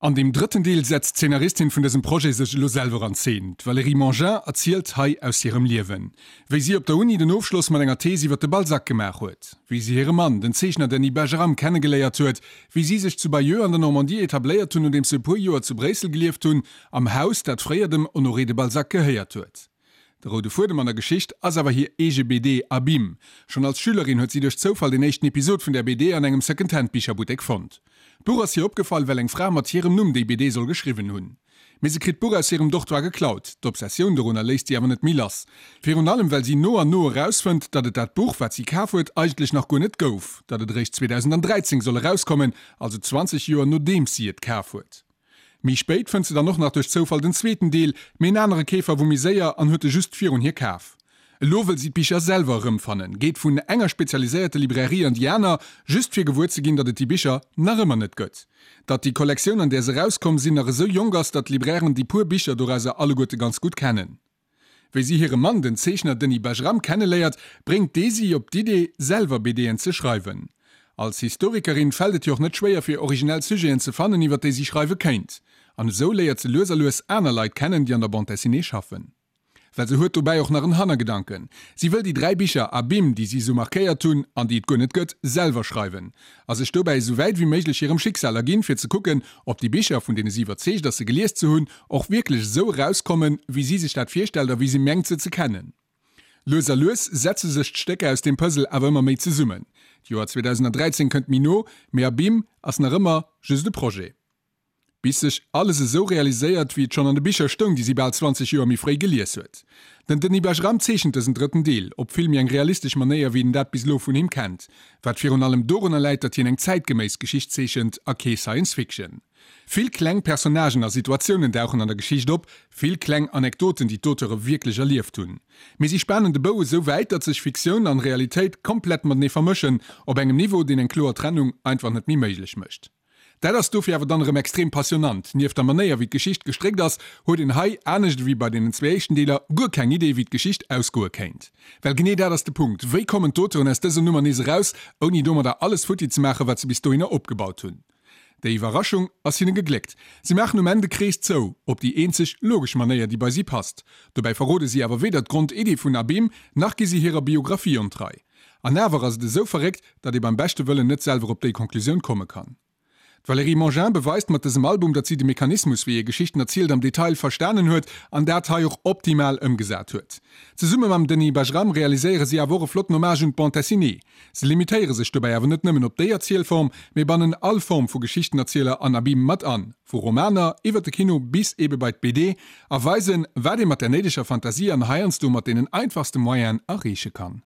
An deem drëtten Deel setzt d'Zeenaristin vun dësem Projet sech elo selwer an Zeen. D'Valérie Mangin erzielt hei aus hirem Liewen. Wéi si op der Uni den Ofschloss mat enger Thees iwwer de Balzac gemaach huet. Wéi si hire Mann, den Zeechner Denis Bajram, kennegeléiert huet. Wéi si sech zu Bayeux an der Normandie etabléiert hunn, nodeems se e puer Joer zu Bréissel gelieft hunn, am Haus, dat fréier dem Honoré de Balzac gehéiert huet. De roude Fuedem an der Geschicht ass awer hir eege BD Abîme. Schonn als Schülerin huet si duerch Zoufall den éischten Episod vun där BD an engem Second-Hand-Bicherbuttek fonnt. D'Buch ass hir opgefall, well eng Fra mat hirem Numm déi BD soll geschriwwen hunn. Mee se kritt d'Buch aus hirem Dortoir geklaut. D'Obsessioun dorunner léisst si awer net méi lass. Virun allem well si no an no erausfënnt, datt et dat Buch, wat si kaf huet, eigentlech nach guer net gouf, datt et eréischt 2013 soll erauskommen, also 20 Joer nodeems si et kaf huet. Méi spéit fënnt se dann och nach duerch Zoufall den zweeten Deel, mee en anere Keefer wor méi séier an huet e just virun hir kaf. Elo wëll si d'Bicher selwer erëmfannen, geet vun enger spezialiséierte Librairie an déi aner, just fir gewuer ze ginn, datt et déi Bicher nach ëmmer net gëtt. Datt déi Kollektioun, an där se erauskomm sinn, nach esou jonk ass, datt d'Librairen déi puer Bicher dorauser alleguerte ganz gutt kennen. Wéi si hire Mann, den Zeechner Denis Bajram, kenneléiert, bréngt dee si op d'Idee, selwer BDen ze schreiwen. Als Historikerin fält et hir och net schwéier fir originell Sujeten ze fannen, iwwer déi si schreiwe kéint. An esou léiert se lues a lues aner Leit kennen, déi an der Bande dessinée schaffen. Well se huet dobäi och nach en Hannergedanken, Si wëll déi 3 Bicher Abîme, déi si esou markéiert hunn an déi et guer net gëtt, selwer schreiwen. A sech dobäi esou wäit ewéi méiglech hirem Schicksal erginn, fir ze kucken, ob déi Bicher, vun deene si iwwerzeegt ass se gelies ze hunn, och wierklech esou erauskommen, wéi si sech dat virstellt a wéi si mengt se ze kennen. Lues a lues setze sech d'Stécker aus deem Puzzle awer ëmmer méi zesummen. D'Joer 2013 kënnt méi no, mee Abîme ass nach ëmmer just e Projet. Bis sech alles esou realiséiert, wéi et schonn an de Bicher stoung, déi si bal 20 Joer méi fréi gelies huet. Den Denis Bajram zeechent dësen drëtten Deel op vill méi eng realistesch Manéier, wéi een dat bis elo vun him kennt, wat virun allem dorunner läit, datt hien eng zäitgeméiss Geschicht zeechent a kee Science Fiction. Vill kleng Personnagen a Situatiounen dauchen an der Geschicht op, vill kleng Anekdoten, déi d'Auteure wierklech erlieft hunn. Mee si spanen de Bou esou wäit, datt sech Fiktioun an Realitéit komplett matenee vermëschen, op engem Niveau, deen eng kloer Trennung einfach net méi méiglech mécht. Dat ass dofir awer dann erëm extrem passionnant. Nieft der Manéier, wéi d'Geschicht gestréckt ass, huet een hei, anescht ewéi bei deenen zwee éischten Deeler, guer keng Idee, wéi d'Geschicht ausgoe kéint. Well genee dat ass de Punkt, Wéi kommen d'Auteuren aus dëser Nummer nees eraus, ouni domadder alles futti ze maachen, wat se bis dohinner opgebaut hunn? Déi Iwwerraschung ass hinne gegléckt. Si maachen um Enn de Krees zou, op déi eenzeg logesch Manéier, déi bei si passt. Dobäi verrode si awer weder d'Grondidee vun Abîme, nach gi si hirer Biographie ontrei. An awer ass et esou verréckt, datt ee beim beschte Wëllen net selwer op déi Conclusioun komme kann. D'Valérie Mangin beweist mat dësem Album, datt si de Mechanismus, wéi ee Geschichten erzielt, am Detail verstanen huet an dat hei och optimal ëmgesat huet. Zesumme mam Denis Bajram realiséiere si awer och e flotten Hommage un d'Bande dessinée. Se limitéiere sech dobäi awer net nëmmen op déi Erzielform, mee bannen all Form vu Geschichtenerzieler an Abîme mat an, vu Romaner iwwer de Kino bis ebe bei d'BD, a weisen, wat ee mat der néideger Fantasie an heiansdo mat deenen einfachste Moyenen erreeche kann.